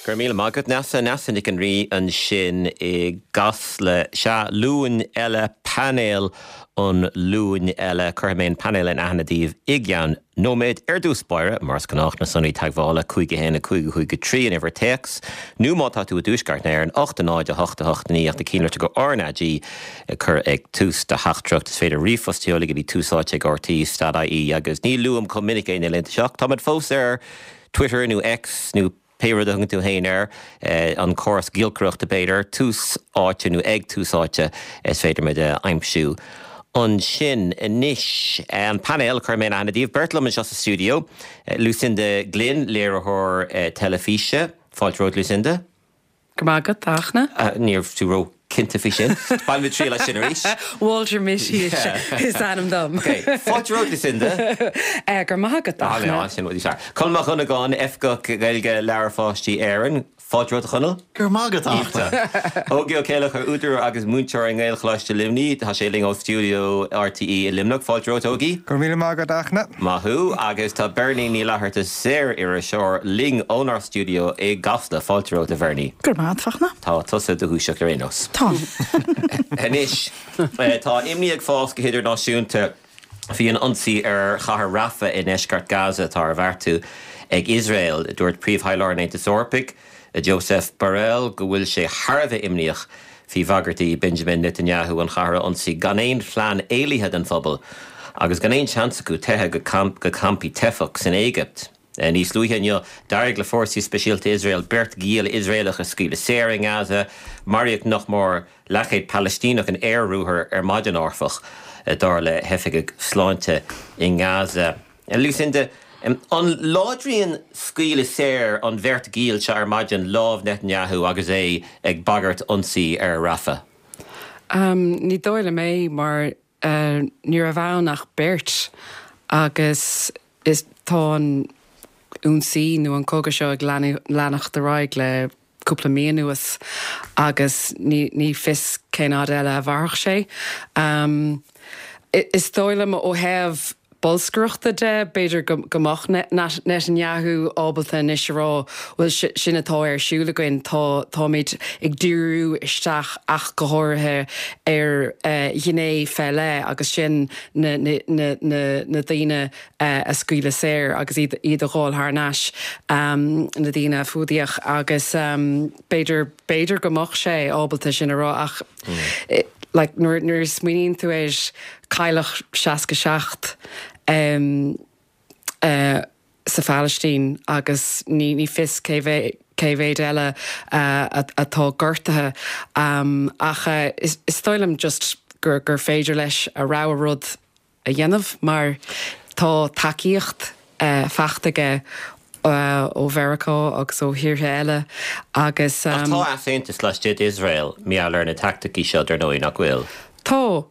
Go raibh míle maith agat, Neasa. Neasa Nic an Rí ansin i gCasla. Sea, Luan eile, painéal an Luain eile. Cuirfidh mé an painéal in aithne daoibh i gceann nóiméid. Ar dtús báire, mar is gnách, na sonraí teagmhála, 5 1 5 5 3 an uimhir téacs, nó má tá tú i dTuaisceart na hÉireann, 8 0 8 8 9 ach na cinnlitreacha RnaG a chur ag tús do theachtaireacht. Is féidir ríomhphost a sheoladh go dtí túsáite ag rte dot ie agus ní luaim chomh minic é na laethanta seo ach táimid fós ar Twitter nó X nó pé rud a thugann tú féin air, an córas giolcaireachta b'fhéidir, Tús Áite nó ag Tús Áite is féidir muid a aimsiú ansin. Anois, an painéal, cuirfidh mé in aithne daoibh, beirt liom anseo sa stiúideo, Lucinda Glynn, léiritheoir teilifíse. Fáilte romhat, Lucinda. Go raibh maith agat, a Fhachtna. Ní raibh tú ró-chinnte faoi sin. Bainfimid triail as sin arís. Walter Mitty is ainm dom. Ok. Fáilte romhat, Lucinda. Go raibh maith agat, a Fhachtna. Sin rud níos fearr. Conall Mac Dhonnagáin, Oifigeach Gaeilge Leabhair Pháistí Éireann. Fáilte romhat, a Chonaill. Go raibh maith agat, a Fhachtna. Ógie Ó Céileachair, údar agus múinteoir i nGaelcholáiste Luimnigh. Tá sé linn ó stiúideo RTÉ i Luimneach. Fáilte romhat, Ógie. Go raibh míle maith agat, a Fhachtna. Maith thú. Agus tá Bernie Ní Fhlatharta, saor-iriseoir, linn ónár stiúideo i gCasla. Fáilte romhat, a Bhernie. Go raibh maith agat, a Fhachtna. Tá tusa i do dhúiseacht ar aon nós. Tá. Anois, tá imní ag fás go hidirnáisiúnta faoi an ionsaí ar chathair Rafah i ndeisceart Gaza atá ar bheartú ag Iosrael. Dúirt Príomh-Thaidhleoir an Aontais Eorpaigh, Josep Borrell go bhfuil sé thar a bheith imníoch faoi bhagairtí Benjamin Netanyahu an chathair a ionsaí gan aon phlean éalaithe don phobal agus gan aon seans acu teitheadh go campaí teifeach san Éigipt. Níos luaithe inniu, d'éirigh le fórsaí speisialta Iosrael beirt ghiall Iosraelach a scaoileadh saor i nGaza. Maraíodh nach mór leathchéad Palaistíneach in aer-ruathar ar maidin, áfach, dar le hoifigigh sláinte i nGaza. Lucinda, An láidríonn scaoileadh saor an bheirt ghiall seo ar maidin lámh Netanyahu agus é ag bagairt ionsaí ar Rafah? Ní dóigh liom é mar ní raibh ann ach beirt agus is tá an ionsaí nó an cogadh seo ag leanacht ar aghaidh le cúpla mí anuas agus ní fios cén fhad eile a mhairfeadh sé. Is dóigh liom ó thaobh bolscaireachta de, b'fhéidir go mbeadh Netanyahu ábalta anois a rá, bhuel, sin atá ar siúl againn, tá, táimid ag díriú isteach ach go háirithe ar ghné fé leith agus sin na daoine a scaoileadh saor agus iad iad a dh'fháil thar n-ais, na daoine a fuadaíodh agus b'fhéidir, b'fhéidir go mbeadh sé ábalta sin a rá ach like nuair, nuair a smaoiníonn tú air, cailleadh 67 sa Phalaistín agus ní, ní fios cé mhéad, cé mhéad eile atá gortaithe ach is, is dóigh liom just gur, gur féidir leis a rogha rud a dhéanamh mar tá tacaíocht faighte aige ó Mheiriceá agus ó thíortha eile agus. Ach tá easaontas laistigh d'Iosrael mar gheall ar na teaicticí seo dar ndóigh, nach bhfuil? Tá,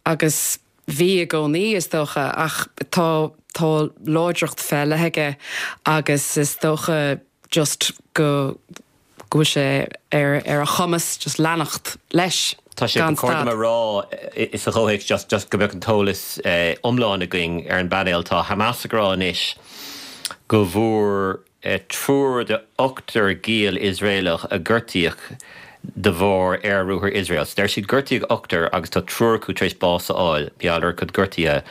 agus bhí i gcónaí is dócha, ach tá tá láidreacht fé leith aige agus is dócha just go go bhfuil sé ar ar a chumas just leanacht leis Tá sé gan ba chóir dom stad. a rá sa chomhthéacs just just go mbeadh an t-eolas iomlán againn ar an bpainéal, tá Hamas ag rá anois go bhfuair triúr de ochtar giall Iosraelach a gortaíodh de bharr aer-ruathar Iosrael. So deir siad gortaíodh ochtar agus tá triúr acu tar éis bás a fháil, mar gheall ar a gcuid gortuithe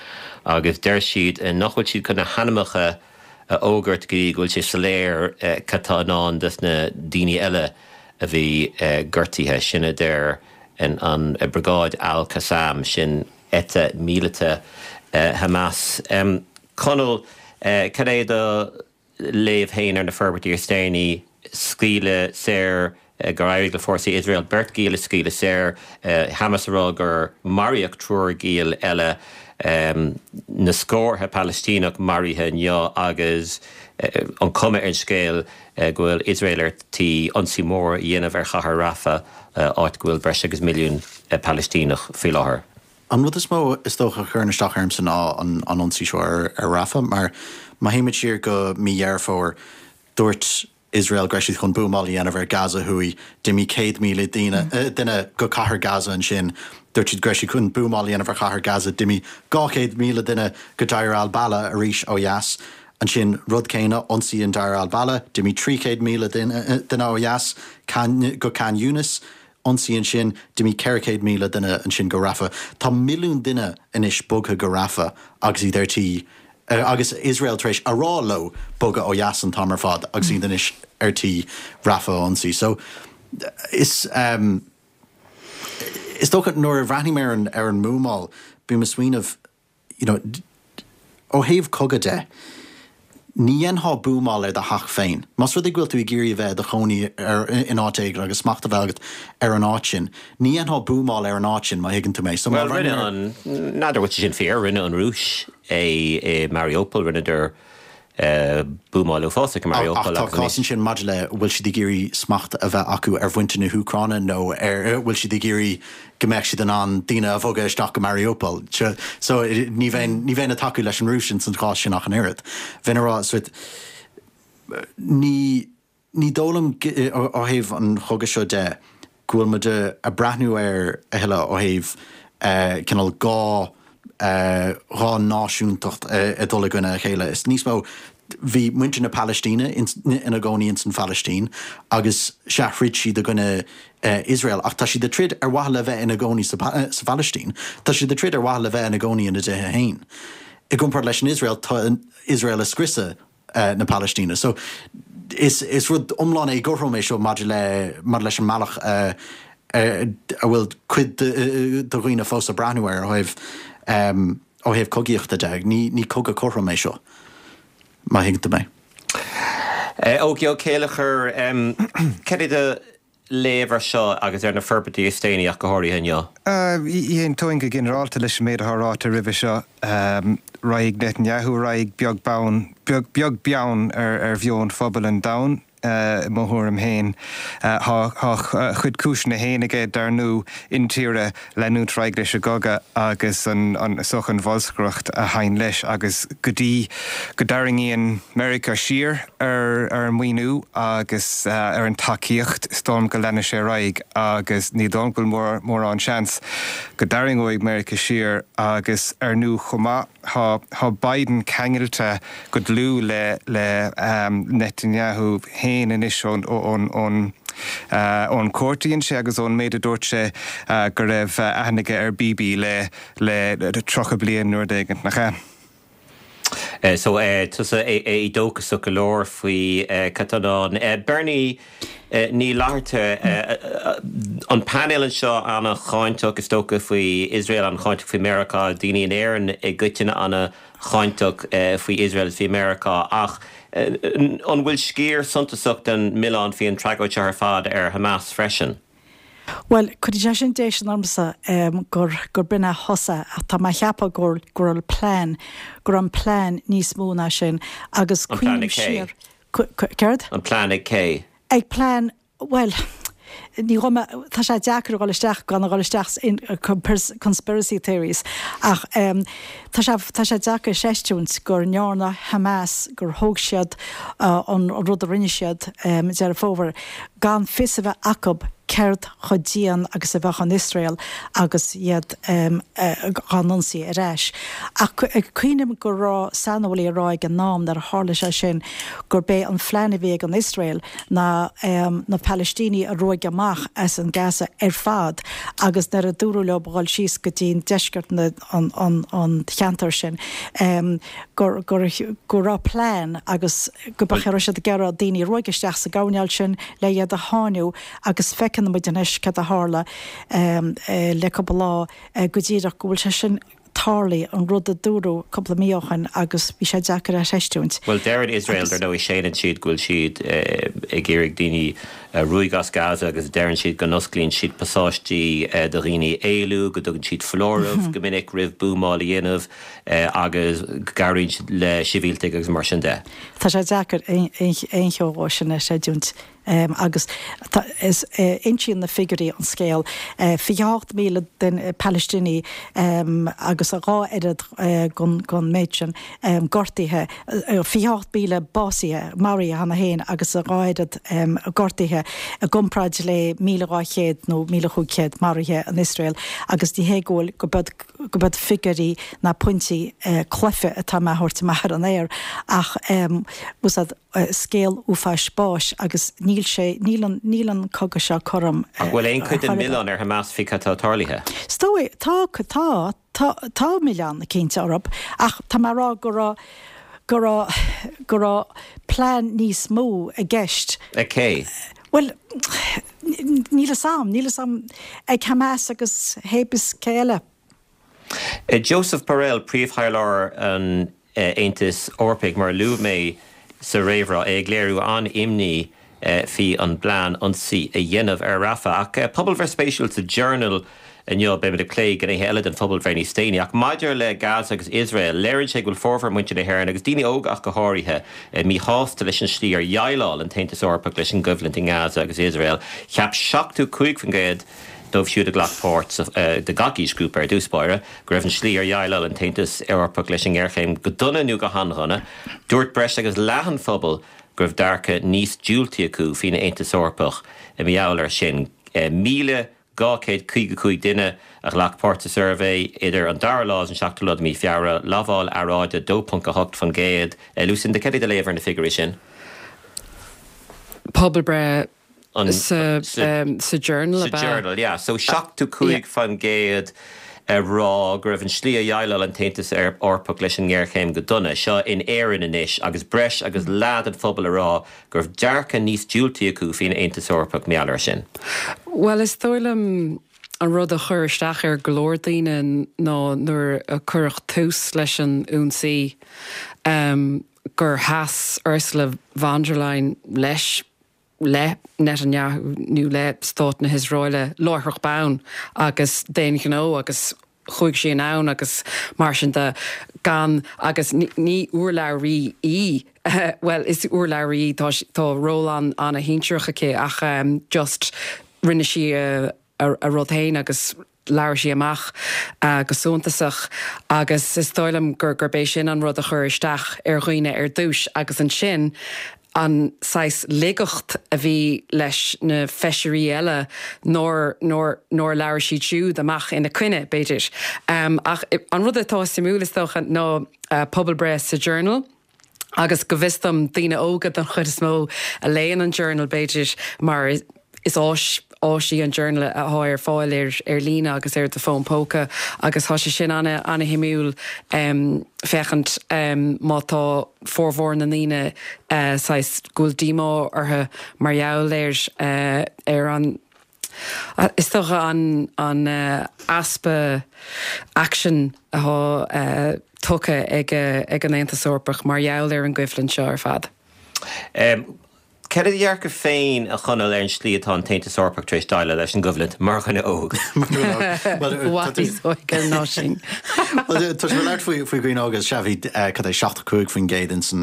agus deir siad nach bhfuil siad chun na hainmneacha a fhógairt go dtí go bhfuil sé soiléir cad tá i ndán dos na daoine eile a bhí gortaithe. Sin a deir an Briogáid Al Qassam, sin eite míleata Hamas. Conall, cad é do léamh féin ar na forbairtí is déanaí? Scaoileadh saor gur éirigh le fórsaí Iosrael beirt ghiall a scaoileadh saor, Hamas ag rá gur maraíodh triúr giall eile, na scórtha Palaistíneach maraithe inniu agus an chuma ar an scéal go bhfuil Iosrael ar tí ionsaí mór a dhéanamh ar chathair Rafah, áit go bhfuil breis agus milliún Palaistíneach faoi láthair. An rud is mó is dócha a chuireann isteach ormsa ná an ionsaí seo ar Rafah mar má théimid siar go mí Dheireadh Fómhair, dúirt Iosrael go raibh siad chun buamáil a dhéanamh ar Gaza thuaidh. D'imigh 100,000 daoine, duine go cathair Gaza ansin. Dúirt siad go raibh siad chun buamáil a dhéanamh ar chathair Gaza. D'imigh 200,000 duine go Deir al-Balah arís ó dheas. Ansin, rud céanna, ionsaí in Deir al-Balah, d'imigh 300,000 duine ó dheas go Khan Younis, ionsaí ansin, d'imigh 400,000 duine ansin go Rafah. Tá milliún duine anois bogtha go Rafah agus iad ar tí, agus Iosrael tar éis a rá leo bogadh ó dheas an t-am ar fad agus iad anois ar tí Rafah a ionsaí. So, is, is dócha nuair a bhreathnaím ar an, ar an mbuamáil, bím ag smaoineamh, you know, ó thaobh cogadh de, ní dhéanfá buamáil ar do theach féin. Más rud é go bhfuil tú ag iarraidh a bheith i do chónaí ar, in áit éigin agus smacht a bheith agat ar an áit sin, ní dhéanfá buamáil ar an áit sin, má thuigeann tú mé. So má Bhuel, rinne an, n'fheadar bhfuil sé sin fíor, rinne an Rúis é i Mariupol, rinneadar buamáil uafásach i Mariupol agus Ach tá cás ansin maidir le bhfuil siad ag iarraidh smacht a bheith acu ar mhuintir na hÚcráine nó ar bhfuil siad ag iarraidh go mbeadh siad in ann daoine a bhogadh isteach go Mariupol. So ní bheinn ní bheinn ag tacú leis an Rúis ins an chás sin ach an oiread. Bheinn ag rá so ní Ní dóigh liom, ó thaobh an chogaidh seo de, go bhfuil muid ag breathnú air a thuilleadh ó thaobh cineál dhá dhá náisiúntacht ag dul i gcoinne a chéile. Is níos mó, bhí muintir na Palaistíne ina gcónaí ins an Phalaistín agus sea, throid siad i gcoinne Iosrael ach tá siad ag troid ar mhaithe le bheith ina gcónaí sa Phalaistín. Tá siad ag troid ar mhaithe le bheith ina gcónaí ina dtithe féin. I gcomparáid leis an Iosrael, tá Iosrael ag scriosadh na Palaistíne. So, is is rud iomlán éagothrom é seo maidir le maidir leis an mbealach a a bhfuil cuid de dhaoine fós ag breathnú air ó thaobh ó thaobh cogaíochta de. Ní ní cogadh cothrom é seo, má thuigeann tú mé. Ógie Ó Céilleachair, cad é do léamh ar seo agus ar na forbairtí is déanaí ach go háirithe inniu? Aontóinn go ginearálta leis an méid atá ráite roimhe seo. Raghaidh Netanyahu ar aghaidh beag beann, beag beann ar mheon phobal an domhain, i mo thuairim féin. Tá a chuid cúiseanna féin aige, dar ndóigh, intíre leanúint ar aghaidh leis an gcogadh agus an soch an bholscaireacht a théann leis agus go dtí go dtarraingíonn Meiriceá siar ar an maoiniú agus ar an tacaíocht, is dóigh liom go leanfaidh sé ar aghaidh agus ní dóigh liom go bhfuil mórán seans go dtarraingeoidh Meiriceá siar agus ar ndóigh chomh maith tá tá Biden ceangailte go dlúth le le Netanyahu féin anois ón ón ón ón cuairt a dhein sé agus ón méid a dúirt sé go raibh aithne aige ar Bibi le le 30 bliain nó rud éigin, nach ea? So, tusa éadóchasach go leor faoi cad tá i ndán. Bernie Ní Fhlatharta, an painéal anseo an-cháinteach is dócha faoi Iosrael, an-cháinteach faoi Meiriceá, daoine in Éirinn i gcoitinne an-cháinteach faoi Iosrael is faoi Meiriceá ach an bhfuil sciar suntasach den milleán faoi an tragóid seo ar fad ar Hamas freisin? Bhuel, cuireann sé sin déistin ormsa gur gur b'in a thosaigh ach tá mé a cheapadh go go raibh plean, go raibh an plean níos mó ná sin agus An plean ag cuimhním cé? siar, céard? An plean ag cé? Ag plean, bhuel, ní ghabh mé, tá sé deacair a dhul isteach gan a dhul isteach in conspiracy theories ach tá sé, tá sé deacair a chreistiúint go ndearna Hamas, gur thóg siad an rud a rinne siad Deireadh Fómhair gan fios a bheith acu céard chomh dian agus a bheadh an Iosrael agus iad dhá n-ionsaí ar ais. Ach cuimhním go raibh saineolaí ag rá ag an am nuair a tharla sé sin gurb é an phlean a bhí ag an Iosrael ná na Palaistínigh a ruaigeadh amach as an Gaza ar fad agus nuair a dúradh leo dhul síos go dtí deisceart an cheantair sin go go raibh plean agus go raibh siad ag iarraidh daoine a ruaigeadh isteach sa gcoirnéal sin le iad a sháinniú agus feiceann muid anois cad a tharla le cúpla lá go díreach go bhfuil sé sin tarlaithe, an rud a dúradh cúpla mí ó shin agus bhí sé deacair a chreistiúint. Bhuel, deireann Iosrael, dar ndóigh, séanann siad go bhfuil siad ag iarraidh daoine a ruaigeadh as Gaza agus deireann siad go n-osclaíonn siad pasáistí do dhaoine éalú, go dtugann siad foláireamh go minic roimh buamáil a dhéanamh agus go gcabhraíonn siad le sibhialtaigh agus mar sin de. Tá sé deacair aon cheo dhó sin a chreidiúint. Agus insíonn na figiúirí an scéal, 28,000 duine Palaistínigh agus a dá oiread den méid sin gortaithe, 28,000 básaithe, maraithe cheana féin agus a dhá oiread gortaithe i gcomparáid le 1,200 nó 1,500 maraithe in Iosrael agus ní hé go bhfuil, go gurb iad figiúirí ná pointí cluife atá mé a thabhairt amach ar an aer ach úsáid scéal uafáis báis agus níl sé, níl an, níl an cogadh seo cothrom Ach bhfuil aon chuid den mhilleán ar Hamas faoi cad atá tarlaithe? Is dóigh, tá, tá, tá, tá milleán cinnte orthu ach tá mé a rá go raibh, go raibh, go raibh plean níos mó i gceist. Ag cé? Bhuel, níl fhios a'm, níl fhios a'm, ag Hamas agus hébis cé eile. Josep Borrell, Príomhthaidhleoir an Aontais Eorpaigh, mar a luaigh mé sa réamhrá, é ag léiriú an-imní faoi an bplean ionsaí a dhéanamh ar Rafah. Ach pobalbhreith spéisiúil sa Journal inniu, beimid ag plé gnéithe eile den phobalbhreith níos déanaí, ach maidir le Gaza agus Iosrael, léiríonn sé go bhfuil formhór muintir na hÉireann, agus daoine óga ach go háirithe, míshásta leis an slí ar dhéileáil an tAontas Eorpach leis an gcoimhlint i nGaza agus Iosrael. Cheap 75% dóibh siúd a ghlac páirt sa, de gach aoisghrúpa ar dtús báire, go raibh an slí ar dhéileáil an tAontas Eorpach leis an ngéarchéim go dona nó go han-dhona. Dúirt breis agus leath an phobail go raibh dearcadh níos diúltaí acu faoin Aontas Eorpach mar gheall air sin. 1,255 duine a ghlac páirt sa suirbhé idir an dara lá agus an seachtú lá de mhí Feabhra, lamháil earráide 2.8%. Lucinda, cad é do léamh ar na figiúirí sin? Pobalbhreith Sa Journal ab ea? Sa Journal, yeah. So 75% ag rá go raibh an slí a dhéileáil an tAontas Eorpach leis an ngéarchéim go dona. Seo in Éirinn anois agus breis agus leath den phobal ag rá go raibh dearcadh níos diúltaí acu faoin Aontas Eorpach mar gheall air sin. Bhuel, is dóigh liom an rud a chuir isteach ar go leor daoine ná nuair a cuireadh tús leis an ionsaí gur sheas Ursula von der Leyen leis le Netanyahu nó le Stát na hIosraeile láithreach bonn agus d'aon ghnó agus chuaigh sí anonn agus mar sin de gan agus ní urlabhraí í bhuel is urlabhraí í tá tá ról an an-shinsearach aici ach just rinne sí a a rud féin agus labhair sí amach go suntasach agus is dóigh liom gur gurb é sin an rud a chuir isteach ar dhaoine ar dtús agus ansin an saghas ligeacht a bhí leis na feisirí eile nár nár nár labhair siad siúd amach ina coinne, b'fhéidir. Ach an rud atá suimiúil is dócha ná pobalbhreith sa Journal, Agus go bhfios dom, daoine óga den chuid is mó a léann an Journal, b'fhéidir, mar is áis áis í an Journal atá ar fáil ar ar líne agus ar do fón póca agus tá sé sin ana ana-shuimiúil féachaint má tá formhór na ndaoine saghas go bhfuil díomá orthu mar gheall ar ar an Is dócha an easpa aicsin atá tugtha ag an Aontas Eorpach mar gheall ar an gcoimhlint seo ar fad. Cad é do dhearcadh féin, a Chonaill, ar an slí atá an tAontas Eorpach tar éis déileáil leis an gcoimhlint, mar dhuine óg? I bhfad níos óige ná sin. Tá sé labhairt faoi dhaoine óga, sea, bhí cad é 75% ins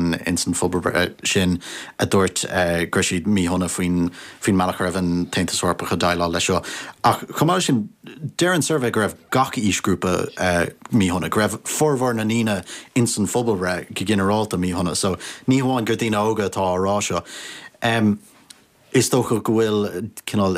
an phobalbhreith sin a dúirt go raibh siad míshona faoin faoin mbealach a raibh an tAontas Eorpach ag déileáil leis seo. Ach chomh maith leis sin, deir an suirbhé go raibh gach aoisghrúpa míshona, go raibh formhór na ndaoine ins an phobalbhreith go ginearálta míshona. So ní hamháin gur daoine óga atá á rá seo. Is dócha go bhfuil cineál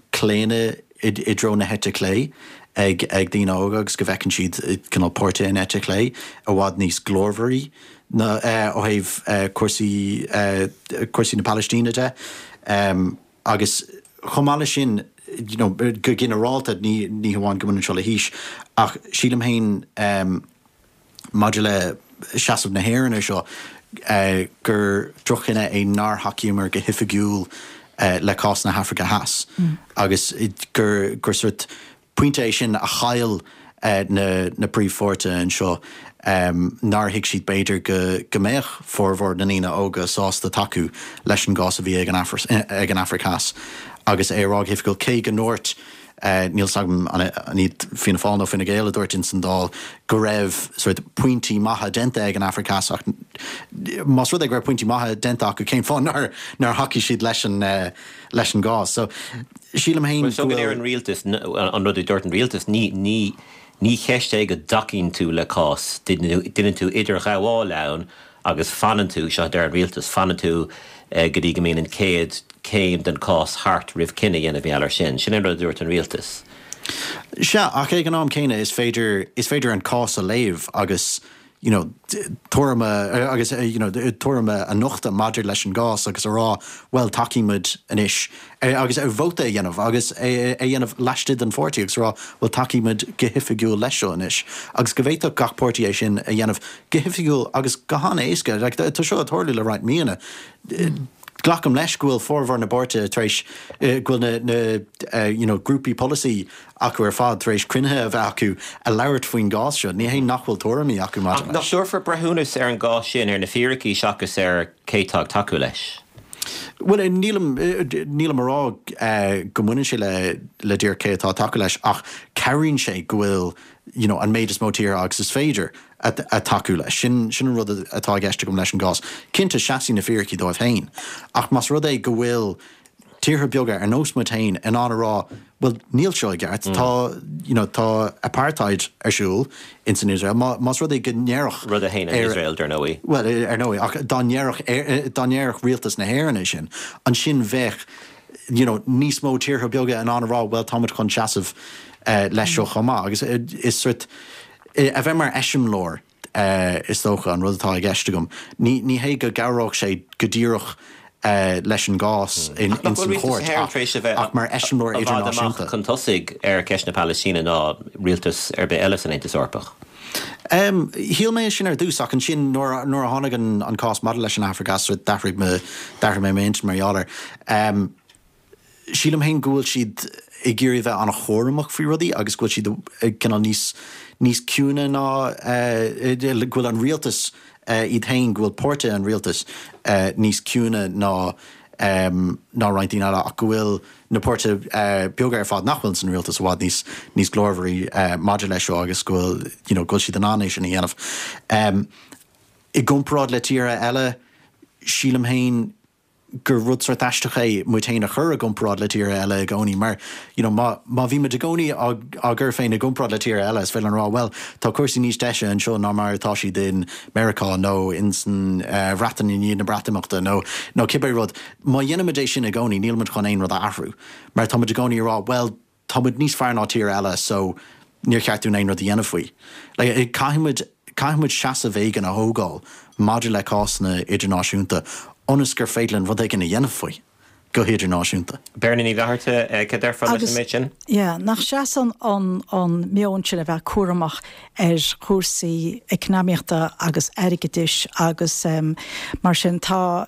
claonadh i dtreo na heite clé ag daoine óga agus go bhfeiceann siad cineál páirtithe an eite chlé i bhfad níos glórmhairí ó thaobh cúrsaí cúrsaí na Palaistíne de. Agus chomh maith leis sin, you know, go ginearálta, ní ní hamháin go mbaineann seo le haois, ach sílim féin maidir le seasamh na hÉireann ar seo, gur droch-chinneadh é nár thacaíomar go hoifigiúil le cás na hAfraice Theas agus gur gur sort Pointe é sin a chaill na príomhpháirtithe anseo, nár thuig siad b'fhéidir go mbeadh formhór na ndaoine óga sásta tacú leis an gcás a bhí ag an Afraic Theas agus é a rá go hoifigiúil, cé go ndúirt, níl 's agam an iad Fianna Fáil nó Fine Gael a dúirt ins an Dáil go raibh sort pointí maithe déanta ag an Afraic Theas ach. Más rud é go raibh pointí maithe déanta acu, cén fáth nár nár thacaigh siad leis an leis an gcás? So, sílim féin go bhfuil. Bhuel, an rialtas, an rud a dúirt an rialtas, ní ní ní cheist é go dtacaíonn tú le cás, déanann tú idirghabháil ann agus fanann tú, seo a deir an rialtas, fanann tú go dtí go mbíonn an chéad chéim den chás thart roimh cinneadh a dhéanamh mar gheall air sin. Sin an rud a dúirt an rialtas. Sea, ach ag an am céanna is féidir, is féidir an cás a léamh agus you know tuairim a, agus you know tuairim a nochtadh maidir leis an gcás agus a rá bhuel tacaímid anois agus vóta a dhéanamh agus é a dhéanamh laistigh den pháirtí agus a rá bhuel tacaímid go hoifigiúil leis seo anois agus go bhféadfadh gach páirtí é sin a dhéanamh go hoifigiúil agus go han-éasca. Like, tá seo ag tarlú le roinnt míonna. Glacaim leis go bhfuil formhór na bpáirtithe tar éis, go bhfuil na, na you know, grúpaí polasaí acu ar fad tar éis cruinnithe a bheith acu a labhairt faoin gcás seo. Ní hé nach bhfuil tuairimí acu maidir leis. Ach nach dtabharfar breithiúnas ar an gcás sin ar na fíricí seachas ar cé atá ag tacú leis? Bhuel, nílim, nílim a rá go mbaineann sé le, le díreach cé atá ag tacú leis ach cabhraíonn sé go bhfuil you know, an méid is mó tíortha agus is féidir ag tacú leis. Sin, sin an rud atá i gceist agam leis an gcás. Cinnte, seasfaidh na fíricí dóibh féin, ach más rud é go bhfuil tíortha beaga ar nós muid féin in ann a rá, bhuel, níl seo i gceart, tá, you know, tá apartheid ar siúl ins an Iosrael, má, más rud é go ndéarfadh. Rud a shéanann Iosrael, dar ndóigh. Bhuel, ar ndóigh, ach dá ndéarfadh, dá ndéarfadh rialtas na hÉireann é sin, ansin bheadh, you know, níos mó tíortha beaga in ann a rá, bhuel, táimid chun seasamh leis seo chomh maith. Agus is sort, a bheith mar eiseamláir, is dócha, an rud atá i gceist agam. Ní, ní hé go gcabhródh sé go díreach leis an gcás in, ins an chúirt ach, ach mar eiseamláir idirnáisiúnta. I bhfad amach chun tosaigh ar cheist na Palaistíne ná rialtas ar bith eile san Aontas Eorpach. Shíl mé sin ar dtús ach ansin nuair a tháinig an cás maidir leis an Afraic Theas d'athraigh d'athraigh mé m'intinn mar gheall air. Sílim féin go bhfuil siad ag iarraidh a bheith an-chúramach faoi rudaí agus go bhfuil siad cineál níos níos ciúine ná go bhfuil an rialtas iad féin, go bhfuil páirtithe an rialtais níos ciúine ná ná roinnt daoine eile ach go bhfuil na páirtithe beaga ar fad nach bhfuil san rialtas i bhfad níos níos glórmhairí maidir leis seo agus go bhfuil you know go bhfuil siad in ann é sin a dhéanamh. I gcomparáid le tíortha eile, sílim féin gur rud sórt aisteach é muid féin a chur i gcomparáid le tíortha eile i gcónaí mar you know má má bhí muid i gcónaí á á gcur féin i gcomparáid le tíortha eile is féidir linn a rá bhuel tá cúrsaí níos deise anseo ná mar atá siad in Meiriceá nó in san Bhreatain i ndiaidh na Breatimeachta nó nó cibé rud. Má dhéanaimid é sin i gcónaí, níl muid chun aon rud a athrú, mar tá muid i gcónaí ag rá, bhuel, tá muid níos fearr ná tír eile so níor cheart dúinn aon rud a dhéanamh faoi. Like, caithfidh muid, caithfidh muid seasamh éigin a thógáil maidir le cásanna idirnáisiúnta ionas gur féidir linn rud éigin a dhéanamh faoi go hidirnáisiúnta. Beirne Ní Fhlatharta, cad a déarfá leis an méid sin? Yeah, nach seasann an an meon sin a bheith cúramach ar chúrsaí eacnamaíochta agus airgeadais agus mar sin tá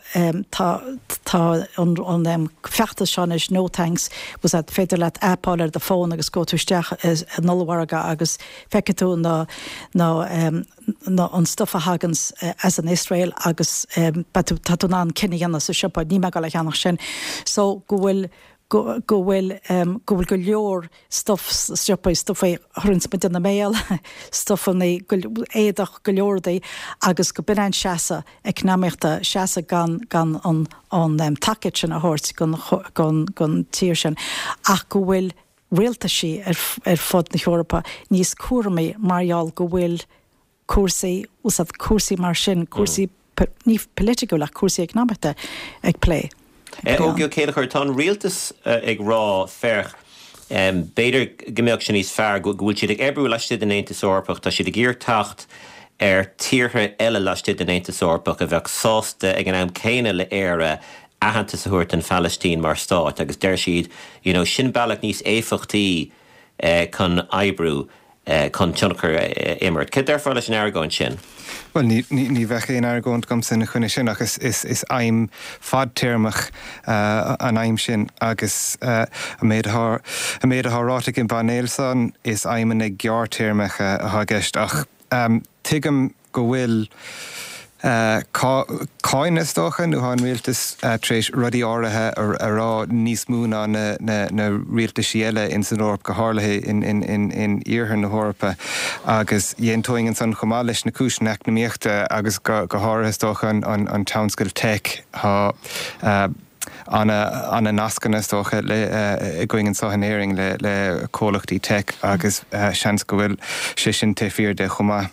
tá tá an an feachtas seo anois No Thanks was that féidir leat aip a fháil ar do fón agus gabhfaidh tú isteach in ollmhargadh agus feicfidh tú na na na an stuff a thaganns as an Iosrael agus beidh tú tá tú in ann cinneadh a dhéanamh sa siopa níl mé ag dul a cheannach sin so go bhfuil go go bhfuil go bhfuil go leor stuff sna siopaí, stuff a chuireanns muid ina mbéal, stufanna, éadach, go leor rudaí agus go b'in an seasamh eacnamaíochta, seasamh gan gan an an tacaíocht sin a thabhairt gon gon gon tír sin ach go bhfuil rialtaisí ar ar fud na hEorpa níos cúramaí mar gheall go bhfuil cúrsaí, úsáid cúrsaí mar sin, cúrsaí ní polaitiúil ach cúrsaí eacnamaíochta ag plé. Ógie Ó Céilleachair, tá an rialtas ag rá, féach, b'fhéidir go mbeadh sé níos fearr go bhfuil siad ag oibriú laistigh den Aontas Eorpach, tá siad ag iarraidh teacht ar tíortha eile laistigh den Aontas Eorpach a bheadh sásta ag an am céanna le Éire aitheantas a thabhairt don Phalaistín mar stát agus deir siad, you know, sin bealach níos éifeachtaí chun oibriú. chun tionchar a imirt. Cad déarfá leis an argóint sin? Bhuel, ní, ní, ní bheadh aon argóint agamsa ina choinne sin ach is, is, is aidhm fadtéarmach an aidhm sin agus an méid atá, an méid atá ráite ag an bpainéal san, is aidhmeanna gearrthéarmacha atá i gceist ach tuigim go bhfuil. Cáineadh is dócha, nó tá an rialtas tar éis rudaí áirithe a rá níos mó ná na rialtaisí eile ins an Eoraip, go háirithe in iarthar na hEorpa. Agus d'aontóinn ansan chomh maith leis na cúiseanna eacnamaíochta agus go háirithe is dócha an tionscal tech. Tá ana-nascanna is dócha againn anseo in Éirinn le comhlachtaí tech agus seans go bhfuil sé sin taobh thiar de chomh maith.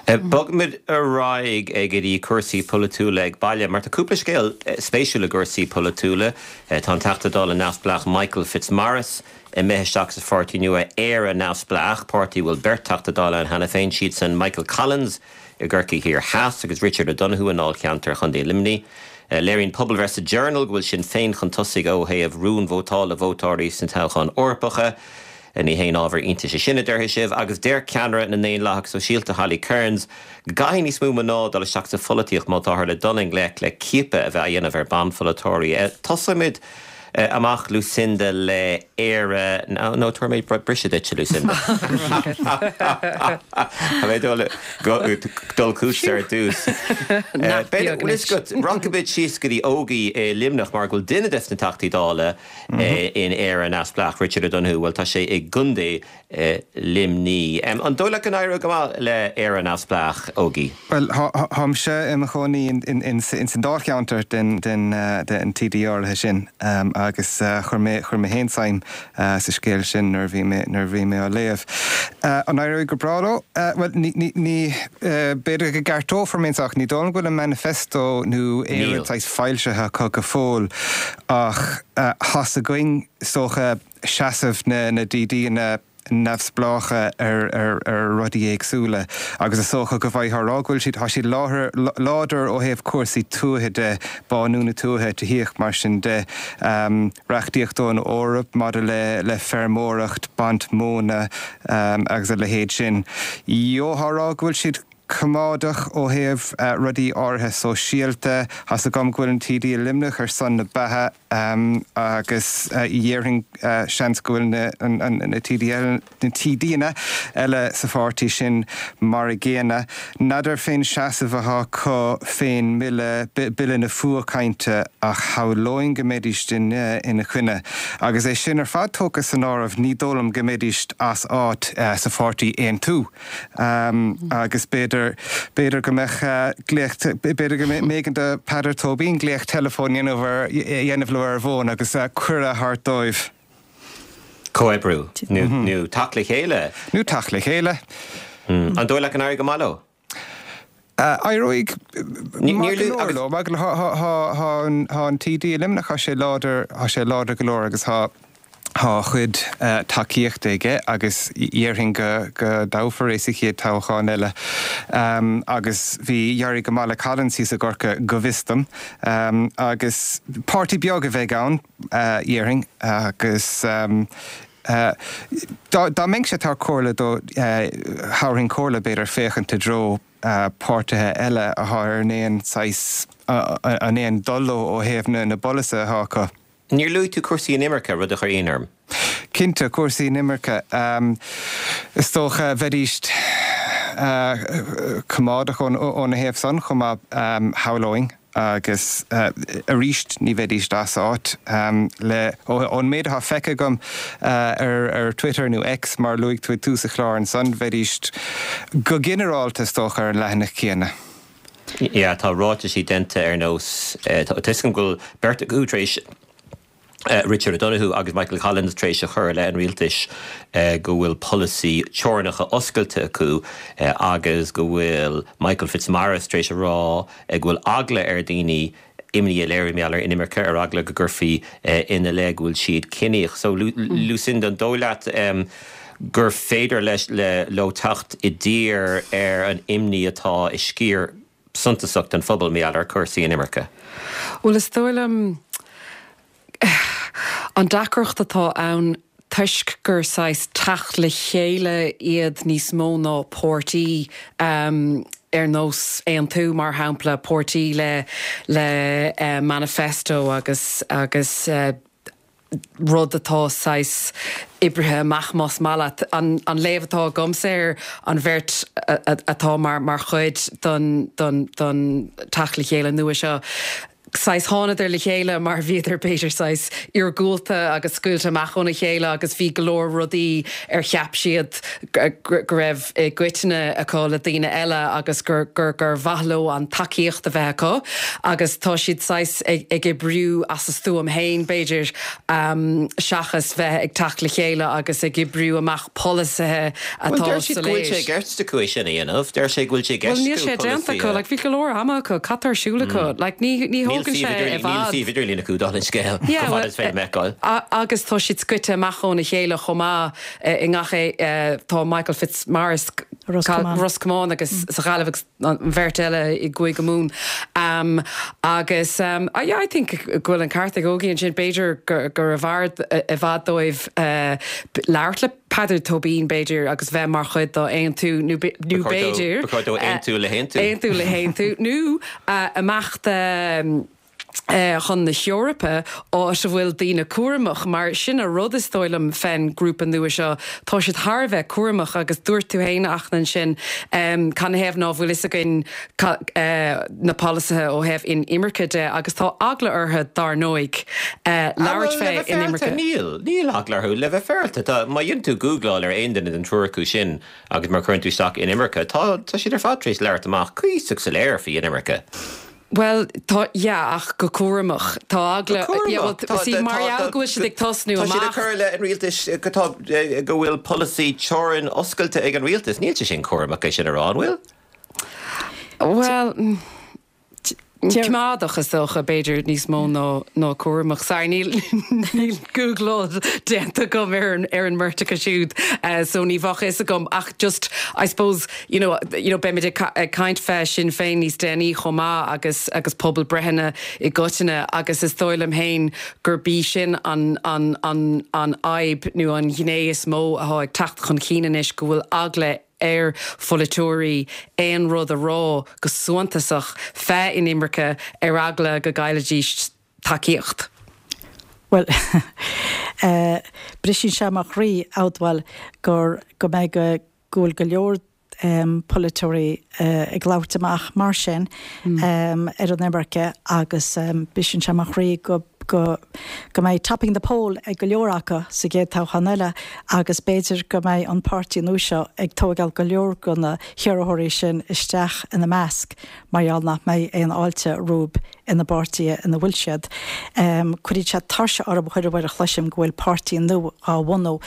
Bogfaimid ar aghaidh go dtí cúrsaí polaitiúla ag baile, mar tá cúpla scéal spéisiúil i gcúrsaí polaitiúla. Tá an Teachta Dála neamhspleách Michael Fitzmaurice imithe isteach sa pháirtí nua Éire Neamhspleách, páirtí a bhfuil beirt Teachta Dála ann cheana féin, siadsan Michael Collins i gCorcaigh Thiar Theas agus Richard O'Donoghue i ndáilcheantar Chontae Luimnigh. Léiríonn pobalbhreith sa Journal go bhfuil Sinn Féin chun tosaigh ó thaobh rúnvótála vótóirí sna toghcháin Eorpacha. Ní haon ábhar iontais é sin, a déarfaidh sibh, agus deir ceannaire na nDaonlathach Sóisialta Holly Cairns go gcaithfidh níos mó mná dul isteach sa pholaitíocht má táthar le dul i ngleic le ciapadh a bheith á dhéanamh ar banpholaiteoirí. Tosóimid amach, Lucinda, le Éire, nó tabharfaidh mé briseadh duit, a Lucinda. Tá mé ag dul chugatsa ar dtús. Rachaimid síos go dtí Ógie i Luimneach mar go bhfuil duine des na Teachtaí Dála in Éire Neamhspleách, Richard O'Donoghue, bhuel tá sé i gContae Luimnigh. An dóigh leat go n-éireoidh go maith le Éire Neamhspleách, Ógie? Bhuel, táimse i mo chónaí ins an dáilcheantar den TD áirithe sin agus chuir mé chuir mé féin suim sa scéal sin nuair a bhí mé nuair a bhí mé á léamh. An éireoidh go breá leo? Bhuel, ní ní ní b'fhéidir go gceartófar mé anseo ach ní dóigh liom go bhfuil an manifesto nó aon rud saghas foilsithe acu go fóill. Ach tá's againn, is dócha, seasamh na DDanna neamhspleácha ar rudaí éagsúla agus is dócha go bhfaighfeá a rá go bhfuil siad, tá siad láidir ó thaobh cúrsaí tuaithe de, bánú na tuaithe, tithíocht, mar sin de, reachtaíocht ón Eoraip maidir le feirmeoireacht, baint móna agus a leithéid sin. Gheofá a rá go bhfuil siad. coimeádach ó thaobh rudaí áirithe sóisialta. Tá's agam go bhfuil an TD i Luimneach ar son na beatha agus dhéarfainn seans go bhfuil na TDanna eile sa pháirtí sin mar a gcéanna. N'fheadar fén seasamh atá acu fén mbille, Bille na Fuathchainte, ach shamhlóinn go mbeidís ina choinne. Agus é sin ar fad tógtha san áireamh ní dóigh liom go mbeidís as áit sa pháirtí Aontú. Agus b'fhéidir, b'fhéidir go mbeadh glaoch, b'fhéidir go mb'éigean do Peadar Tóibín glaoch teileafóin a dhéanamh ar, a dhéanamh leo ar an bhfón agus cuireadh a thabhairt dóibh. Comhoibriú nó, nó teacht le chéile. Nó teacht le chéile. An dóigh leat go n-éireoidh go maith leo? Éireoidh maith go leor leo. Maith go leor. Tá an TD i Luimneach, tá sé láidir, tá sé láidir go leor agus tá a chuid tacaíochta aige agus dhéarfainn go dtoghfar é sa chéad toghchán eile. Agus bhí, d'éirigh go maith le Collins thíos i gCorcaigh go bhfios dom. Agus páirtí beag a bheidh ann, dhéarfainn, agus Dá mbeinnse ag tabhairt comhairle dó, thabharfainn comhairle, b'fhéidir, féachaint i dtreo páirtithe eile atá ar an aon saghas, an aon dul leo ó thaobh na bpolasaithe atá acu. Níor luaigh tú cúrsaí inimirce, rud a chuir ionadh orm. Cinnte, cúrsaí inimirce. Is dócha, bheidís coimeádach óna thaobh san chomh maith, shamhlóinn. Agus arís, ní bheidís as áit le, ón méid atá feicthe agam ar Twitter, nó X mar a luaigh tú ag tús an chláir ansan, bheidís go ginearálta is dócha ar an leathanach céanna. Yeah, tá ráitisí déanta ar nós, tá 'fhios agam go bhfuil beirt acu tar éis Richard O'Donoghue agus Michael Collins tar éis a chur i leith an rialtais go bhfuil polasaí teorainneacha oscailte acu agus go bhfuil Michael Fitzmaurice tar éis a rá go bhfuil eagla ar dhaoine imní a léiriú mar gheall ar inimirce ar eagla go gcuirfí ina leith go bhfuil siad ciníoch. So Lucinda, an dóigh leat gur féidir leis leo teacht i dtír ar an imní atá i sciar suntasach den phobal mar gheall ar chúrsaí inimirce. Bhuel, is dóigh liom an deacracht atá ann toisc gur saghas teacht le chéile iad níos mó ná páirtí ar nós Aontú, mar shampla, páirtí le le manifesto agus agus. rud atá saghas oibrithe amach más maith leat. An léamh atá agamsa ar an bheirt atá mar chuid den teacht le chéile nua seo, saghas thánadar le chéile mar bhíodar b'fhéidir saghas iargúlta agus scaoilte amach óna chéile agus bhí go leor rudaí ar cheap siad go raibh i gcoitinne acu le daoine eile agus gur gur mhaith leo an tacaíocht a bheith acu agus tá siad saghas ag oibriú as a stuaim féin b'fhéidir seachas bheith ag teacht le chéile agus ag oibriú amach polasaithe atá soiléir. Bhuel deir siad go bhfuil sé i gceist acu é sin a dhéanamh. Deir sé go bhfuil sé i gceist acu polasaithe. Bhuel níl sé déanta acu, like bhí go leor ama acu, cad tá ar siúl acu? Like ní ní thógann sé i bhfad. Níl suíomh idirlín acu dála an scéil, chomh fada is féidir liom a fheiceáil. Agus tá siad scoite amach óna chéile chomh maith. I ngach tá Michael Fitzmaurice, Ros Comáin agus sa Ghaillimh agus an bheirt eile i gCúige Mumhan. Agus yeah, I think go bhfuil an ceart ag Ógie ansin, b'fhéidir gurbh fhearr i bhfad dóibh labhairt le Peadar Tóibín b'fhéidir agus bheith mar chuid dá Aontú nó b'fhéidir Ba chóir dó aontú le hAontú. Aontú le hAontú nó imeacht chun na hEorpa, áit a bhfuil daoine cúramach, mar sin an rud is dóigh liom fén grúpa nua seo, tá siad thar a bheith cúramach agus dúirt tú fhéin a Fhachtna ansin, canathaobh ná fuil fhios againn na polasaithe ó thaobh inimirce de agus tá eagla orthu dár ndóigh labhairt fé inimirce. Níl, níl eagla orthu, le bheith féaráilte, tá, má dhéanann tú gúgláil ar aon duine den triúr acu sin agus má chuireann tú isteach inimirce, tá, tá siad ar fad tar éis labhairt amach cuíosach soiléir faoi inimirce. Bhuel, tá, yeah, ach go cúramach. Tá eagla, Go yeah, well, cúramach. see, mar gheall go bhfuil siad ag tosnú Tá siad ag amach. cur i leith an rialtais go tá, go bhfuil polasaí teorann oscailte ag an rialtas. Níl sé sin cúramach é sin a rá, an bhfuil? Bhuel, coimeádach is dócha, b'fhéidir, níos mó ná, ná cúramach. Sorry, níl, níl gúgláil déanta agam ar an, ar an mbeirt acu siúd, so ní bheadh fhios agam ach just, I suppose, you know, you know, beimid ag ag caint fé Sinn Féin níos déanaí chomh maith agus agus pobalbreitheanna i gcoitinne agus is dóigh liom féin gurb í sin an an an an fhadhb nó an ghné is mó atá ag teacht chun cinn anois go bhfuil eagla ar pholaiteoirí aon rud a rá go suntasach fé inimirce ar eagla go gcaillfidís tacaíocht. Bhuel, briseann sé mo chroí a admháil gur go mbeidh go go bhfuil go leor polaiteoirí ag labhairt amach mar sin ar an imirce agus briseann sé mo chroí go go go mbeidh topping the poll ag go leor acu sa gcéad toghchán eile agus b'fhéidir go mbeidh an páirtí nua seo ag tóigeáil go leor de na hiarrthóirí sin isteach ina measc mar gheall nach mbeidh aon fháilte rompu ina bpáirtithe ina bhfuil siad. Cuireann sé tuirse orm chuile uair a chloisim go bhfuil páirtí nua á bhunú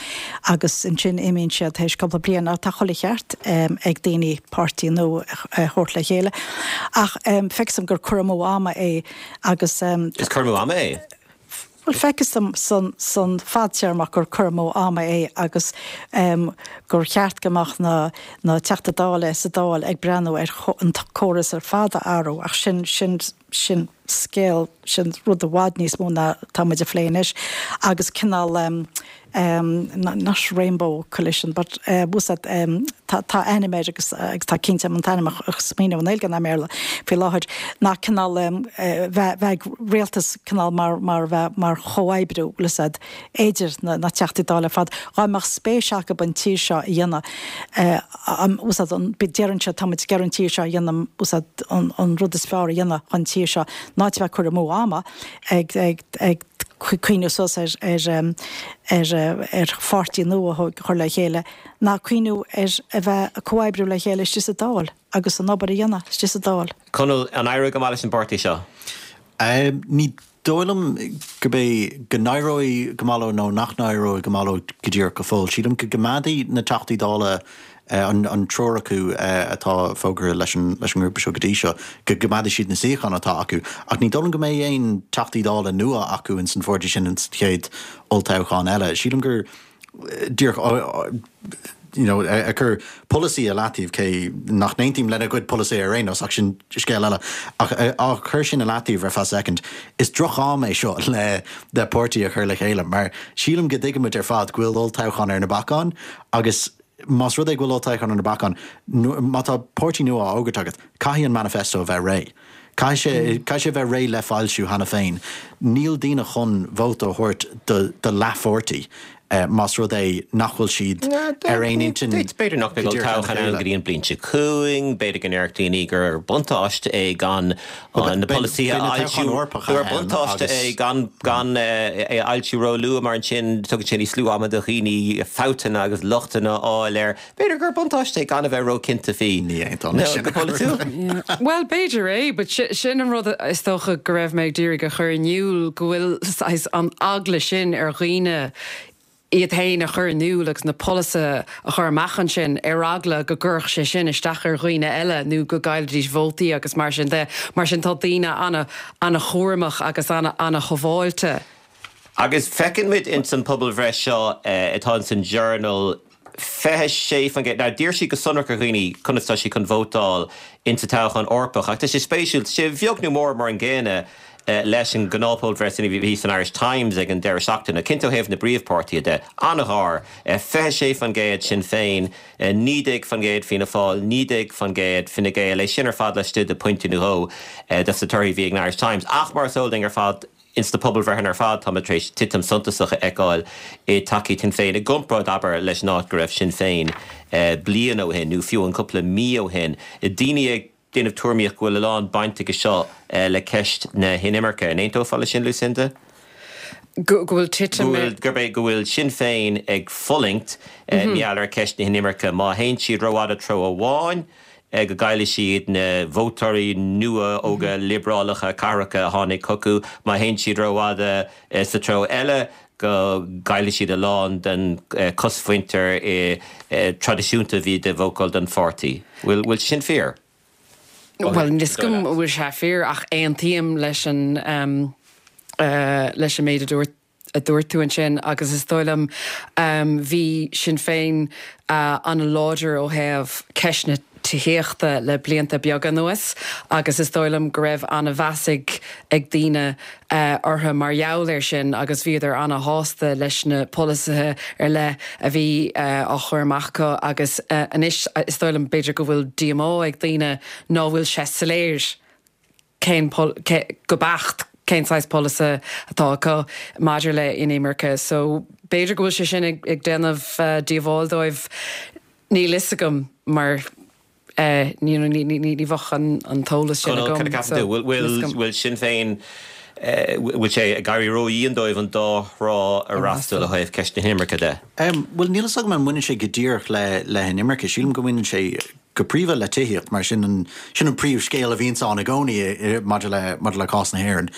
agus ansin imíonn siad théis cúpla bliain. Tá chuile cheart ag daoine páirtí nua a thabhairt le chéile ach feictear dom gur cur amú ama é agus. Is cur amú ama é? Bhuel, feictear dom san, san fadtéarmach gur cur amú ama é agus gur cheart go mbeadh na, na Teachta Dála sa Dáil ag breathnú ar an córas ar fad a athrú ach sin, sin, sin scéal, sin rud i bhfad níos mó ná tá muid a phlé anois agus cineál not rainbow coalition but bhfuil tá, tá ainm air agus agus tá cinnte an t-ainm a smaoineamh i nGaeilge ná i mBéarla faoi láthair ná cineál bheith bheith ag rialtas cineál mar mar bheith mar chomhoibriú bhfuil fhios a'd idir na na Teachtaí Dála ar fad dhá mbeadh spéis acu an tír seo a dhéanamh bhfuil fhios a'd an deireann siad tá muid ag iarraidh an tír seo a dhéanamh bhfuil fhios a'd an an rud is fearr a dhéanamh chun tír seo ná a bheith ag cur amú ama ag ag ag cuimhneamh suas ar ar ar pháirtí nua a chur le chéile ná cuimhneamh ar a bheith ag comhoibriú le chéile istigh sa Dáil agus an obair a dhéanamh istigh sa Dáil. Conall, an éireoidh go maith leis an bpáirtí seo? Ní dóigh liom gurb é go n-éireoidh go maith leo nó nach n-éireoidh go maith leo go díreach go fóill. Sílim go gcoimeádfaidh na Teachtaí Dála an triúr acu atá fógartha leis an ngrúpa seo go dtí seo, go gcoimeádfaidh siad na suíocháin atá acu. Ach ní dóigh liom go mbeidh aon Teachtaí Dála nua acu ins an pháirtí sin ins an chéad olltoghchán eile. Sílim gur díreach you know ag cur polasaí i leataobh, cé nach n-aontaím lena gcuid polasaí ar aon nós, ach sin scéal eile, ach á chur sin i leataobh ar feadh soicind, is droch-am é seo le le páirtí a chur le chéile mar sílim go dtuigimid ar fad go bhfuil olltoghchán ar na bacáin agus. más rud é go bhfuil olltoghchán ar na bacáin, má tá páirtí nua á fhógairt agat, caithfidh an manifesto a bheith réidh. Caithfidh sé, caithfidh sé a bheith réidh le foilsiú cheana féin. Níl daoine chun vóta a thabhairt do, do leathpháirtí más rud é nach bhfuil siad ar aon intinn B'fhéidir nach mbeidh olltoghchán ann go dtí an bhliain seo chugainn, b'fhéidir go ndéarfadh daoine gur buntáiste é gan na polasaithe a fhoilsiú, gur buntáiste é gan gan é a fhoilsiú róluath mar ansin tugann sé níos lú ama do dhaoine fabhtanna agus lochtanna a fháil air. B'fhéidir gur buntáiste é gan a bheith róchinnte faoi. Ní aontóinn leis sin. Go polaitiúil. Bhuel, b'fhéidir é, but sin an rud is dócha go raibh mé ag d'iarraidh a chur in iúl, go bhfuil saghas an eagla sin ar dhaoine iad féin a chur in iúl agus na polasaithe a chur amach ansin ar eagla go gcuirfeadh sé sin isteach ar dhaoine eile nó go gcaillfidís vótaí agus mar sin de. Mar sin tá daoine ana-chúramach agus ana-shábháilte. Agus feiceann muid ins an pobalbhreith seo atá ins an Journal, 26%, now d'iarr siad go sonrach ar dhaoine conas tá siad chun vótáil ins an toghchán Eorpach ach tá sé spéisiúil, tá sé beag nó mór mar an gcéanna leis an ngnáthphobalbhreith sin a bhí san Irish Times ag an deireadh seachtaine, cinnte ó thaobh na bpríomhpháirtithe de, an-ghar, 26% Sinn Féin, 19% Fianna Fáil, 19% Fine Gael, é sin ar fad laistigh de phointe nó dhó dos na torthaí a bhí ag an Irish Times ach mar is eol duinn ar fad, Ins na pobalbhreitheanna ar fad táimid tar éis titim suntasach a fheiceáil i dtacaíocht Shinn Féin i gcomparáid, abair, leis an áit go raibh Sinn Féin bliain ó shin nó fiú an cúpla mí ó shin. Daoine ag déanamh tuairimíocht go bhfuil a lán baint aige seo le ceist na hinimirce. An aontófá leis sin, Lucinda? Go bhfuil titim i. Gurb é go bhfuil Sinn Féin ag fulaingt mar gheall ar cheist na hinimirce. Má théann siad rófhada treo amháin, go gcaillfidh siad na vótóirí nua óga liobrálacha cathracha a tháinig chucu, má théann siad rófhada sa treo eile, go gcaillfidh siad a lán den chosmhuintir traidisiúnta a bhí ag vótáil don pháirtí. Bhfuil sin fíor? Bhuel, níl 'fhios agam an bhfuil sé fíor ach aontaím leis an leis an méid a dúirt a dúirt tú ansin agus is dóigh liom bhí Sinn Féin an-láidir ó thaobh ceist na tithíochta le blianta beaga anuas agus is dóigh liom go raibh an-mheas ag ag daoine orthu mar gheall air sin agus bhíodar an-shásta leis na polasaithe ar leith a bhí á chur amach acu agus anois is dóigh liom b'fhéidir go bhfuil díomá ag daoine ná bhfuil sé soiléir cén, go beacht cén saghas polasaí atá acu maidir le inimirce. So b'fhéidir go bhfuil sé sin ag déanamh díobháil dóibh, níl fhios agam mar you know ní bheadh an t-eolas sin agam. Conall, cad a cheapann tú? Bhfuil, bhfuil Sinn Féin, bhfuil sé ag éirí ródhian dóibh an dá thrá a fhreastal ó thaobh ceist na hinimirce de? Bhuel, níl fhios agam an mbaineann sé go díreach le le hinimirce. Sílim go mbaineann sé go príomha le tithíocht, mar sin an, sin an príomhscéal a bhíonns ann i gcónaí maidir le, maidir le cás na hÉireann.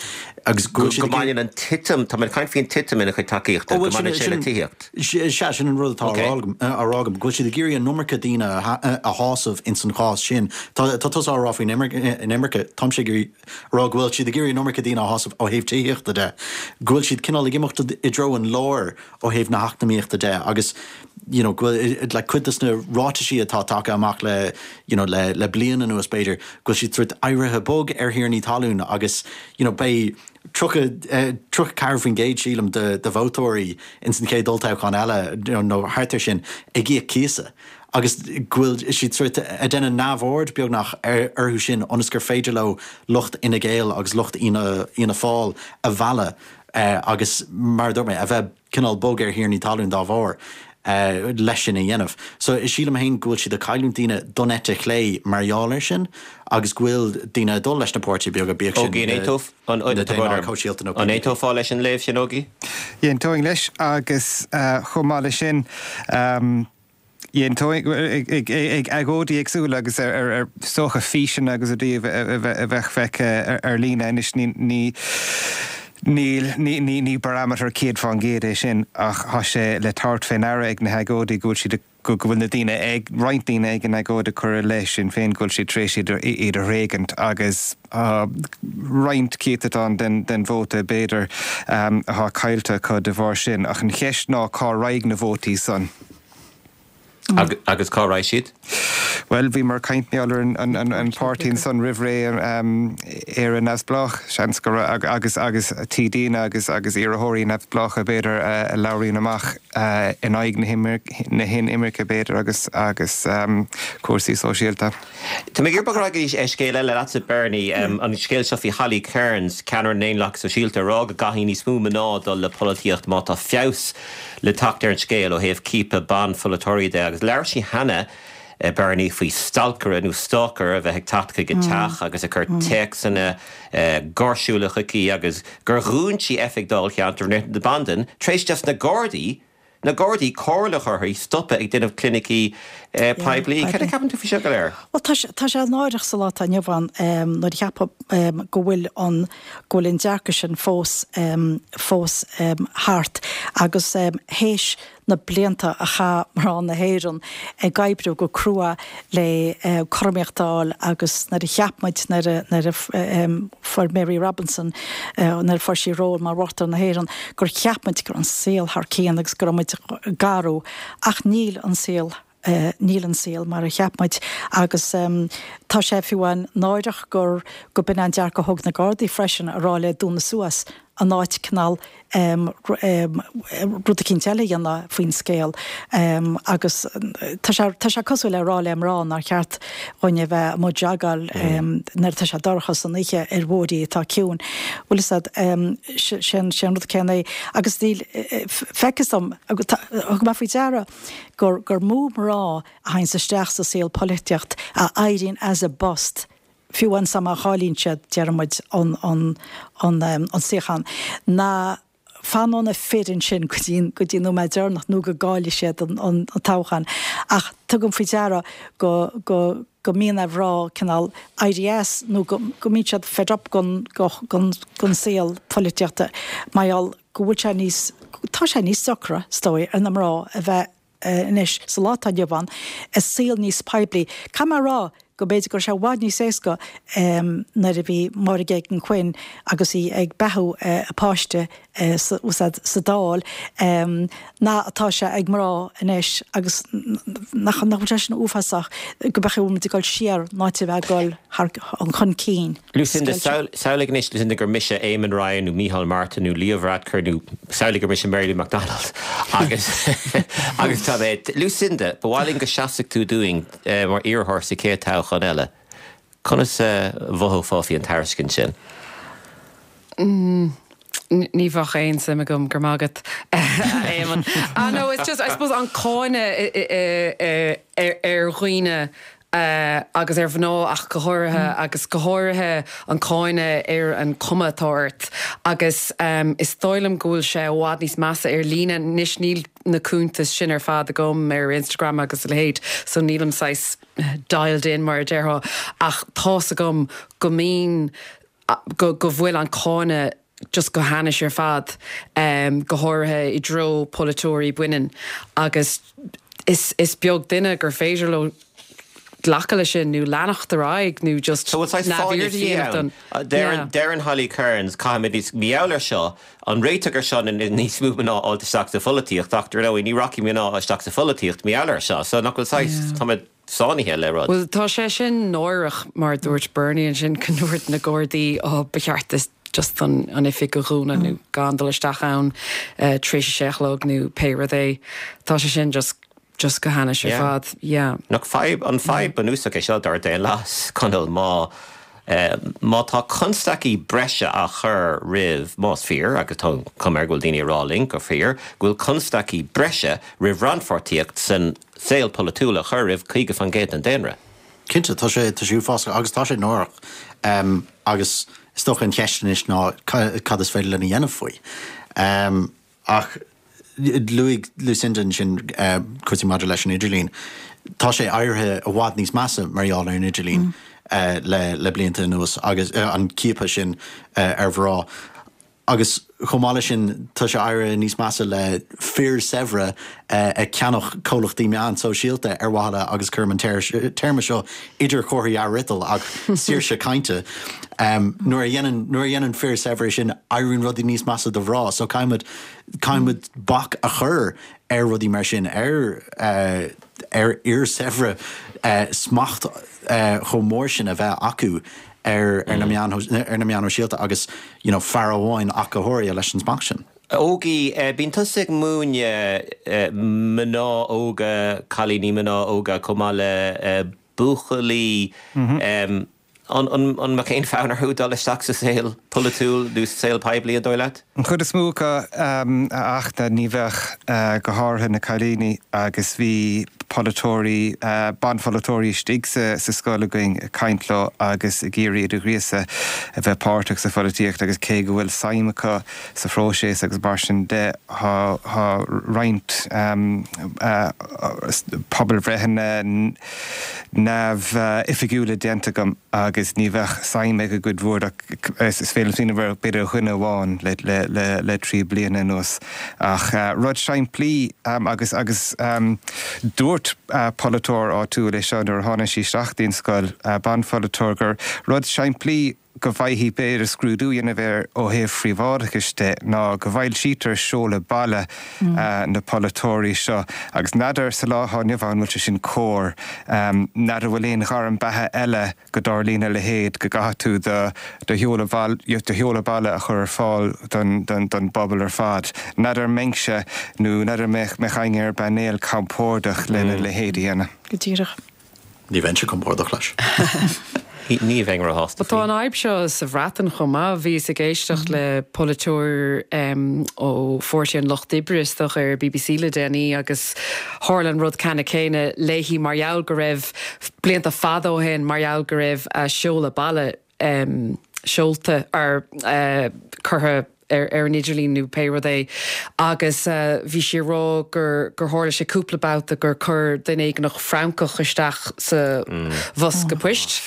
Agus go bhfuil siad ag. Go mbaineann an titim, tá mé ag caint faoin titim ina chuid tacaíochta, go mbaineann sé le tithíocht. Sea, sin an rud atá á rá agam, á rá agam, go bhfuil siad ag iarraidh an iomarca daoine a shásamh ins an chás sin. Tá, tá tusa á rá faoin inimirce, táimse ag iarraidh a rá go bhfuil siad ag iarraidh an iomarca daoine a shásamh ó thaobh tithíochta de, go bhfuil siad cineál ag imeacht i dtreo an láir ó thaobh na heacnamaíochta de agus you know go bhfuil like cuid des na ráitisí atá tagtha amach le you know le le bliain anuas b'fhéidir go bhfuil siad sort éirithe bog ar thiarnaí talún agus you know beidh 30 34% sílim de de vótóirí ins an chéad olltoghchán eile you know nó thart ar sin ag íoc cíosa agus go bhfuil siad sort ag déanamh neamhaird beagnach ar orthu sin ionas gur féidir leo lucht Fhine Gael agus lucht Fhianna Fhianna Fáil a mhealladh agus mar a dúirt mé, a bheith cineál bog ar thiarnaí talún dá bharr leis sin a dhéanamh. So sílim féin go bhfuil siad ag cailliúint daoine don eite chlé mar gheall air sin agus go bhfuil daoine ag dul leis na páirtithe beaga, bíodh sin na Daonlathaigh Shóisialta nó An aontófá leis an léamh sin, Ógie? Aontóinn leis agus chomh maith leis sin, Aontóinn ag agóidí éagsúla agus ar is dócha físeanna agus rudaí a bheadh feicthe ar líne anois ní níl ní barometer 100% é sin ach tá sé le tabhairt fé ndeara ag na hagóidí go bhfuil siad go bhfuil na daoine ag roinnt daoine ag an agóid ag cur i leith Sinn Féin go bhfuil siad tar éis iad a thréigint agus tá roinnt céatadán den vóta b'fhéidir atá caillte acu de bharr sin ach an cheist ná cá raghaidh na vótaí san? Agus cá raghaidh siad? Bhuel, bhíomar ag caint mar gheall ar an páirtí ansan roimh ré, Éire Neamhspleách, seans go raibh, agus agus TDanna agus agus iarrthóirí neamhspleácha b'fhéidir a labhraíonn amach in aghaidh na hinimirce b'fhéidir agus agus cúrsaí sóisialta. Tá mé ag iarraidh bogadh ar aghaidh go dtí scéal eile leatsa Bernie, an scéal seo faoi Holly Cairns, ceannaire na nDaonlathach Sóisialta, ag rá go gcaithfidh níos mó mná dul le polaitíocht má tá feabhas le teacht ar an scéal ó thaobh ciapadh ban-pholaiteoirí de agus labhair sí cheana, Bernie, faoi stalcaire nó stalker a bheith ag teacht chuig a teach agus ag cur téacsanna gáirsiúla chuici agus gur dhún sí oifig dáilcheantair na Bandan tar éis dos na Gardaí na Gardaí comhairle a chur uirthi stopadh ag déanamh clinicí poiblí. Cad a cheapann tú faoi seo go léir? Bhuel tá sé tá sé náireach sa lá atá inniu ann nuair a cheapfá go bhfuil an go bhfuil an dearcadh sin fós fós thart agus théis na blianta a chaith mná na hÉireann ag oibriú go crua le cothromaíocht a fháil agus nuair a cheap muid nuair a nuair a fuair Mary Robinson nuair a fuair sí ról mar Uachtarán na hÉireann gur cheap muid go raibh an saol thar cionn agus go raibh muid ag athrú ach níl an saol Níl an saol mar a cheap muid agus tá sé fiú amháin náireach gur go b'in an dearcadh a thóg na Gardaí freisin a rá léi dúnadh suas in áit cineál rud eicínt eile a dhéanamh faoin scéal agus tá sé tá sé cosúil le rá le mná nár cheart dhúinn a bheith amuigh ag jogáil nuair atá sé dorcha san oíche ar bhóithrí atá ciúin. Bhfuil fhios a'd, sé an rud céanna é agus níl feictear dom, thug mé faoi deara gur gur mó mná a théanns isteach sa saol polaitíocht a éiríonn as a bpost, fiú amháin má chailleann siad, déarfaidh muid, an an an an suíochán, ná fanann na fir ansin go dtí go dtí an nóiméad deireanach nó go gcaillfidh siad an an toghchán. Ach tugaim faoi deara go go go mbíonn ar mhná cineál éirí as nó go go mbíonn siad fed up gon gon gon saol polaitíochta mar gheall go bhfuil sé níos, tá sé níos deacra, is dóigh, ar na mná a bheith anois, sa lá atá inniu ann, i saol níos poiblí. Caithfidh mé a rá go mb'fhéidir go raibh sé i bhfad níos éasca nuair a bhí Máire Geoghegan Quinn agus í ag beathú a páiste sa Dáil ná atá sé ag mná anois agus nach bhfuil sé sin uafásach go mbeadh muid ag dul siar in áit a bheith ag dul thar chun cinn. Lucinda, Samhlaigh anois, Lucinda, gur mise Eamon Ryan nó Micheál Martin nó Leo Varadkar nó samhlaigh gur mise Mary Lou McDonald agus agus tá mé, Lucinda, ba mhaith linn go seasfadh tú dúinn mar iarrthóir sa chéad toghchán eile. Conas a mhothófá faoi an tairiscint sin? Ní bheadh aon suim agam, go raibh maith agat, a Éamoinn. Ah no, it's just, I suppose, an cáineadh ar dhaoine agus ar mhná ach go háirithe, agus go háirithe an cáineadh ar an cuma atá ort. Agus is dóigh liom go bhfuil sé i bhfad níos measa ar líne. Anois níl na cuntais sin ar fad agam ar Instagram agus a leithéid, so nílim saghas dialed in mar a déarfá, ach tá's agam go mbíonn, go go bhfuil an cáineadh just go hainnis ar fad, go háirithe i dtreo polaiteoirí baineann agus is is beag duine gur féidir leo glacadh leis sin nó leanacht ar aghaidh nó just So bhfuil saghas fáinne neamhaird a fí dhéanamh ann? don, yeah. Deireann Holly Cairns, caithfimid níos, mar gheall air seo, an réiteach ar seo ná níos mó mná a fháilt isteach sa pholaitíocht ach dar ndóigh ní rachaidh mná isteach sa pholaitíocht mar gheall air seo so nach bhfuil saghas, Yeah. táimid sáinnithe le rud. Bhuel, tá sé sin náireach, mar a dúirt Bernie ansin, go ndúirt na Gardaí, oh, ba cheart duit just an an oifig a dhúnadh nó gan dul isteach ann tar éis a sé a chlog nó pé rud é. Tá sé sin just just go hainnis ar Yeah. fad. Yeah. Nach fadhb, an fadhb bunúsach é seo dár daonlathas, Conall, má má tá constaicí breise á chur roimh, más fíor, agus tá an chuma air go bhfuil daoine ag rá linn gur fíor, go bhfuil constaicí breise roimh rannpháirtíocht san saol polaitiúil a chur roimh 50% den daonra. Cinnte, tá sé, tá sé uafásach agus tá sé náireach. Agus is dócha an cheist anois ná cad is féidir linn a dhéanamh faoi. Ach luaigh Lucinda ansin cúrsaí maidir leis an idirlíon. Tá sé éirithe i bhfad níos measa mar gheall ar an idirlíon le blianta anuas agus an ciapadh sin ar mhná. Agus chomh maith leis sin, tá sé éirithe níos measa le fir saibhre ag ceannach comhlachtaí meán sóisialta ar mhaithe le, agus cuirim an téarma seo idir chomharthaí athfhriotail, ach saoirse cainte. Nuair a dhéanann, nuair a dhéanann fir saibhre sin, éiríonn rudaí níos measa do mhná. So caithfimid, caithfimid bac a chur ar rudaí mar sin, ar. ar fhir saibhre smacht chomh mór sin a bheith acu ar na meáin ar na meáin shóisialta agus you know fear amháin ach go háirithe leis an smacht sin. Ógie, bíonn tusa ag múineadh mná óga, cailíní mná óga chomh maith le buachaillí. An mbeadh aon fhonn orthu dul isteach sa saol polaitiúil nó sa saol poiblí, an dóigh leat? An chuid is mó acu, a Fhachtna, ní bheadh, go háirithe na cailíní agus bhí polaiteoirí, banpholaiteoirí istigh sa scoil againn ag caint leo agus ag iarraidh iad a ghríosadh a bheith páirteach sa pholaitíocht agus cé go bhfuil suim acu sa phróiseas agus mar sin de, tá roinnt pobalbhreitheanna, neamhoifigiúla déanta agam agus ní bheadh suim ag an gcuid mhór ach is féidir liom smaoineamh ar b'fhéidir dhuine amháin le 3 bliana anuas. Ach rud simplí agus agus dúirt polaiteoir áitiúil é seo nuair a tháinig sí isteach dtí'n scoil, banpholaiteoir, gur rud simplí go bhfaighfí b'fhéidir scrúdú a dhéanamh air ó thaobh phríobháideachais de ná go bhfoilsítear seoladh baile na polaiteoirí seo agus n'fheadar sa lá atá inniu ann an bhfuil sé sin cóir. N'fheadar bhfuil aon ghairm beatha eile go dtarlaíonn a leithéid, go gcaithfidh tú do do sheoladh do sheoladh baile a chur ar fáil don don bpobal ar fad. N'fheadar an mbeinnse nó n'fheadar an mbeadh éinne ar an bpainéal compordach lena leithéid a dhéanamh. Go díreach. Ní bheinnse compordach leis. Ní bheinn róshásta faoi. Tá an fhadhb seo sa Bhreatain chomh maith. Bhíos ag éisteacht le polaiteoir ó Pháirtí an Lucht Oibre, is dócha, ar BBC le déanaí agus tharla an rud ceannann céanna léi mar gheall go raibh, blianta fada ó shin, mar gheall go raibh a seoladh baile seolta or curtha ar ar an idirlíon nó pé rud é agus bhí sí ag rá gur gur tharla sé cúpla babhta gur chuir duine éigineach francach isteach sa bhosca poist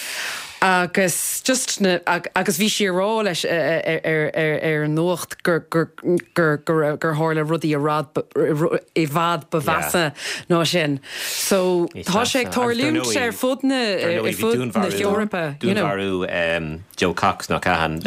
agus just na agus bhí sí ag rá leis ar ar ar an nuacht gur gur gur gur gur tharla rudaí i rad i bhfad ba mheasa ná sin. So tá sé ag tarlúint ar fud na ar fud na hEorpa, you know. Dúnmharú Jo Cox nach ea, an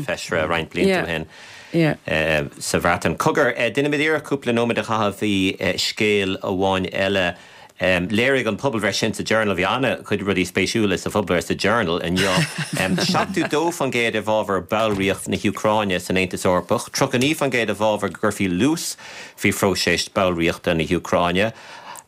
feisire roinnt blianta ó shin sa Bhreatain. Cogar, déanfaimid iarracht cúpla nóiméad a chaitheamh faoi scéal amháin eile. Léirigh an pobalbhreith sin sa Journal, bhí an-chuid rudaí spéisiúla sa phobalbhreith sa Journal inniu, 72% i bhfabhar ballraíocht na hÚcráine san Aontas Eorpach, 39% i bhfabhar go gcuirfí luas faoi phróiseas ballraíochta na hÚcráine.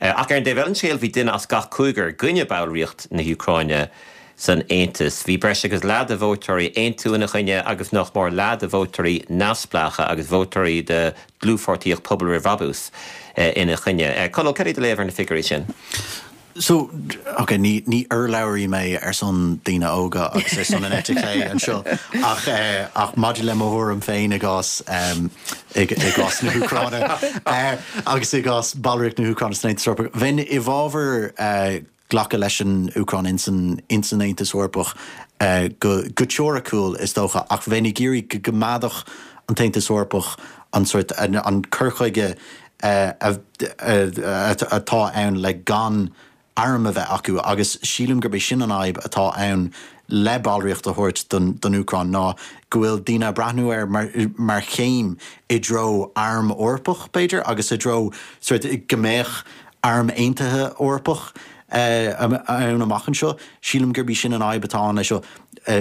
Ach ar an dtaobh eile den scéal, bhí duine as gach cúigear i gcoinne ballraíocht na hÚcráine san Aontas. Bhí breis agus leath de vótóirí Aontú ina choinne agus nach mór leath de vótóirí neamhspleácha agus vótóirí de Dhlúthpháirtíocht Pobal Roimh Bhrabús ina choinne. Conall, cad é do léamh ar na figiúirí sin? So, ok, ní, ní urlabhraí mé ar son daoine óga agus ar son an eite chlé anseo ach, ach maidir le mo thuairim féin i gcás, i gcás na hÚcráine agus i gcás ballraíocht na hÚcráine san Aontas Eorpach, bheinn i bhfabhar glacadh leis an Úcráin ins an ins an Aontas Eorpach go go teoiriciúil is dócha ach bheinn ag iarraidh go gcoimeádfadh an tAontas Eorpach an sórt an cur chuige atá ann le gan airm a bheith acu agus sílim gurb é sin an fhadhb atá ann le ballraíocht a thabhairt don don Úcráin ná go bhfuil daoine ag breathnú air mar mar chéim i dtreo arm Eorpach b'fhéidir agus i dtreo sórt go mbeadh Arm Aontaithe Eorpach ann amach anseo. Sílim gurb í sin an fhadhb atá ann leis seo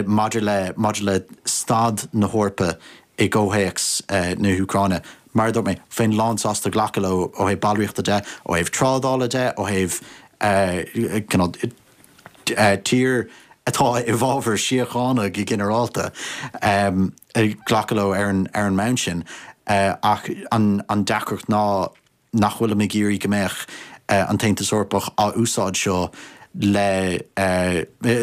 maidir le maidir le staid na hEorpa i gcomhthéacs na hÚcráine. Mar a dúirt mé, bheinn lánsásta glacadh leo ó thaobh ballraíochta de, ó thaobh trádála de, ó thaobh cineál tír atá i bhfabhar síochána go ginearálta, glacadh leo ar an ar an mbonn sin. Ach an deacracht ná nach bhfuilim ag iarraidh go mbeadh an tAontas Eorpach á úsáid seo le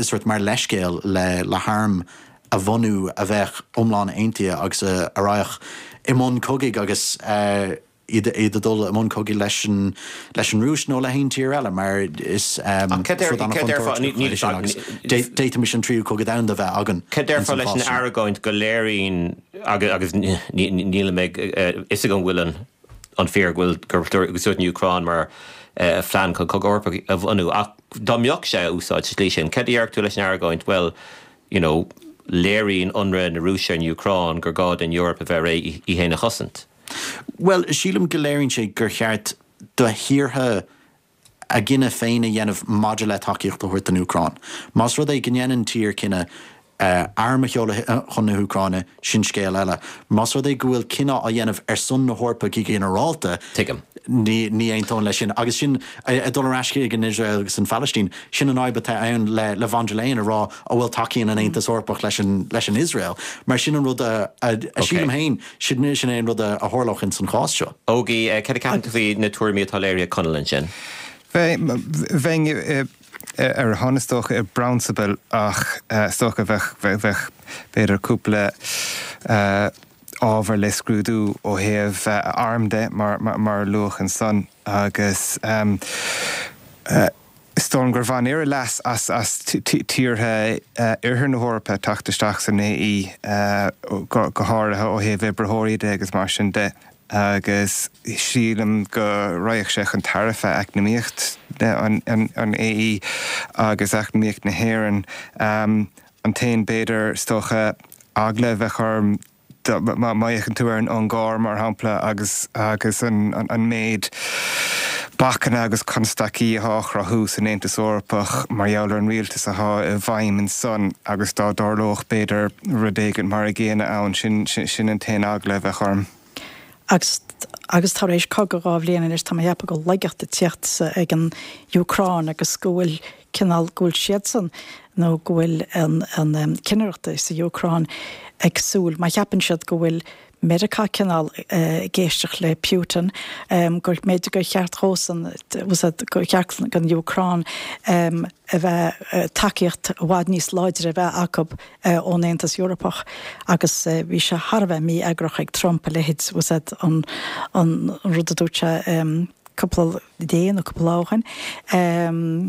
sórt mar leithscéal le le harm a bhunú a bheadh iomlán aontaithe agus a raghadh i mbun cogaidh agus iad iad ag dul i mbun cogaidh leis an leis an Rúis nó le haon tír eile mar is rud an-chontúirteach é sin agus d'fhéadfaimis an tríú cogadh domhanda a bheith againn Cad déarfá leis an argóint go léiríonn agus nílim ag fhios agam bhfuil an an fíor go bhfuil gur úsáideadh an Úcráin mar phlean chun cogadh Eorpach a bhunú ach dá mbeadh sé á úsáid sa tslí sin, cad a déarfadh tú leis an argóint, bhuel, you know, léiríonn ionradh na Rúise ar an Úcráin gur gá don Eoraip a bheith réidh í féin a chosaint? Bhuel, sílim go léiríonn sé gur cheart do thíortha. a gcinneadh féin a dhéanamh maidir le tacaíocht a thabhairt don Úcráin. Más rud é go ndéanann tír cinneadh arm a sheoladh chun na hÚcráine, sin scéal eile. Más rud é go bhfuil cinneadh á dhéanamh ar son na hEorpa go ginearálta, Tuigim. ní aontóinn leis sin. Agus sin, ag dul ar ais chuig an Iosrael agus an Phalaistín, sin an fhadhb atá ann le von der Leyen a rá an bhfuil tacaíonn an Aontas Eorpach leis an leis an Iosrael. Mar sin an rud a sílim féin, sin é an rud a tharlódh ins an chás seo. Ógie, cad a ceapann tú faoi na tuairimí atá léirithe ag Conall ansin? Bheinn ar a shon is dócha i bprionsabal ach is dócha bheadh bheadh b'fhéidir cúpla ábhar le scrúdú ó thaobh arm de mar mar a luadh ansan agus is dóigh liom gur bhain Éire leas as as tíortha oirthear na hEorpa teacht isteach san AE go go háirithe ó thaobh oibritheoirí de agus mar sin de. agus sílim go raghadh sé chun tairbhe eacnamaíocht an AE agus eacnamaíocht na hÉireann. An t-aon, b'fhéidir, is dócha, eagla a bheadh orm, má fhéachann tú ar an Ungáir, mar shampla, agus agus an méid bacanna agus constaicí atá á chruthú san Aontas Eorpach mar gheall ar an rialtas atá i bhfeidhm ansan agus dá dtarlódh, b'fhéidir, rud éigin mar a gcéanna ann, sin, sin an t-aon eagla a bheadh orm. Agus, agus tar éis cogadh 2 bhliain anois, tá mé ag ceapadh go bhfuil laigeacht ag tíocht ag an Úcráin agus go bhfuil cineál, go bhfuil siadsan nó go bhfuil an, an cinnireacht sa Úcráin ag súil, má cheapann siad go bhfuil Meiriceá cineál ag éisteacht le Putin, gur mb'fhéidir gur cheart dhósan, gur cheart don Úcráin a bheith, tacaíocht i bhfad níos láidre a bheith acu ón Aontas Eorpach agus bhí sé thar a bheith mí-eagrach ag Trump a leithéid, an rud a dúirt sé cúpla dé nó cúpla lá ó shin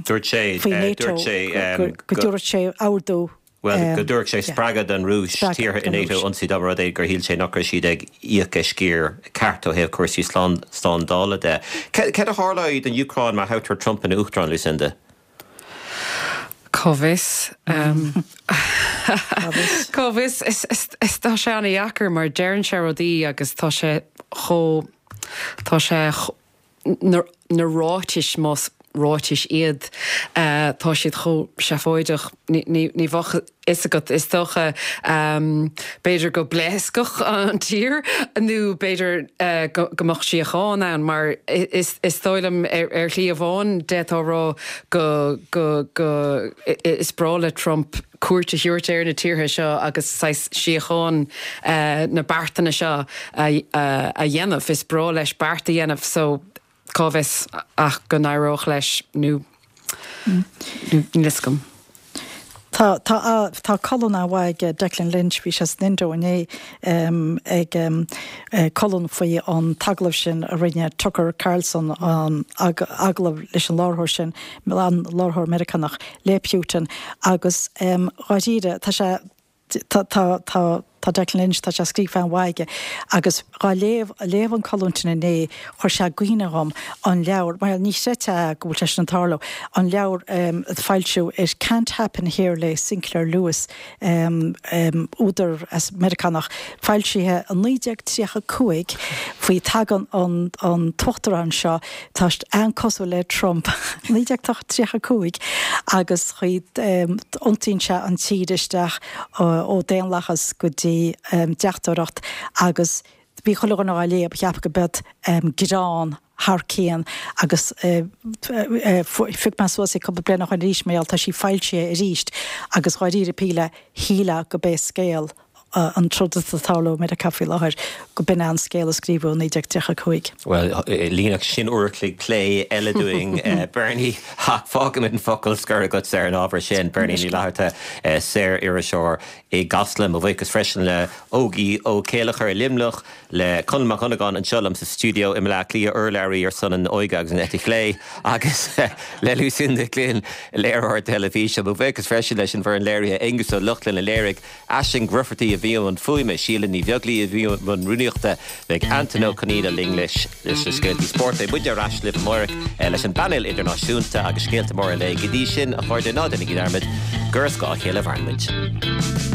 Dúirt sé, faoi NATO, go dtabharfadh sé ordú. Bhuel, go dtabharfadh sé spreagadh don Rúis tíortha i NATO a ionsaí dá mba rud é gur shíl sé nach raibh siad ag íoc a sciar ceart ó thaobh cúrsaí slándála de. Céard a tharlóidh don Úcráin má thoghtar Trump ina Uachtarán, Lucinda? Cá bhfios? Cá bhfios? Is tá sé an-dheacair mar deireann sé rudaí agus tá sé chomh, tá sé na ráitis, más ráitis iad, tá siad chomh seafóideach, ní bheadh a fhios agat, is dócha. B'fhéidir go bpléascfadh an tír nó b'fhéidir go mbeadh síocháin ann mar is dóigh liom ar shlí amháin d'fhéadfá a rá go, go, go, is breá le Trump cuairt a thabhairt ar na tíortha seo agus saghas síocháin na beartanna seo a dhéanamh. Is breá leis beart a dhéanamh so cá bhfios ach go n-éireodh leis nó níl fhios agam. Tá, tá, tá colún an-mhaith ag Declan Lynch, bhí sé san Indo inné ag colún faoi an t-agallamh sin a rinne Tucker Carlson, an agallamh leis an láithreoir sin, an láithreoir Meiriceánach le Putin agus dháiríre tá sé, tá, tá, tá, tá Declan Lynch, tá sé scríofa an-mhaith aige agus dhá léamh, léamh an colún sin inné chuir sé i gcuimhne dhom an leabhar, mar ní chreidfeá go bhfuil sé sin ag tarlú, an leabhar a foilsíodh It Can't Happen Here le Sinclair Lewis, údar as Meiriceánach, foilsithe i 1935 faoi tagann an an t-uachtarán seo, tá an-cosúil le Trump, 1935 agus iontaíonn sé an tír isteach ó daonlathas go dtí deachtóireacht agus bhí chuile dhuine á léamh, cheap go b'iod greann thar cionn agus phioc mé suas í cúpla bliain ó shoin arís mar gheall tá sí foilsithe arís agus dháiríre píre shílfeá go b'é scéal an troid atá ag tarlú i Meiriceá faoi láthair, go b'in é an scéal a scríobhadh i 1935. Bhuel, líonfadh sin uair a chloig plé eile dúinn, Bernie, ach fágfaimid an focal scoir agatsa ar an ábhar sin. Bernie Ní Fhlatharta, saor-iriseoir i gCasla. Mo bhuíochas freisin le Ógie Ó Céilleachair i Luimneach, le Conall Mac Dhonnagáin anseo liom sa stiúideo i mBaile Átha Cliath, urlabhraí ar son an óige agus an eite chlé, agus le Lucinda Glynn, léiritheoir teilifíse. Mo bhuíochas freisin leis an bhfoireann léirithe, Aengus Ó Lochlainn a léirigh, Aisling Grufferty a bhí i mbun fuaime, Síle Ní Bheaglaoí a bhí i mbun rúnaíochta, beidh Antain Ó Conaola linn leis na scéaltaí spóirt. Beidh muidne ar ais libh amárach leis an bpainéal idirnáisiúnta agus scéalta móra an lae. Go dtí sin, a chairde, ná déanaigí dearmad gur as a chéile a mhaireann muid.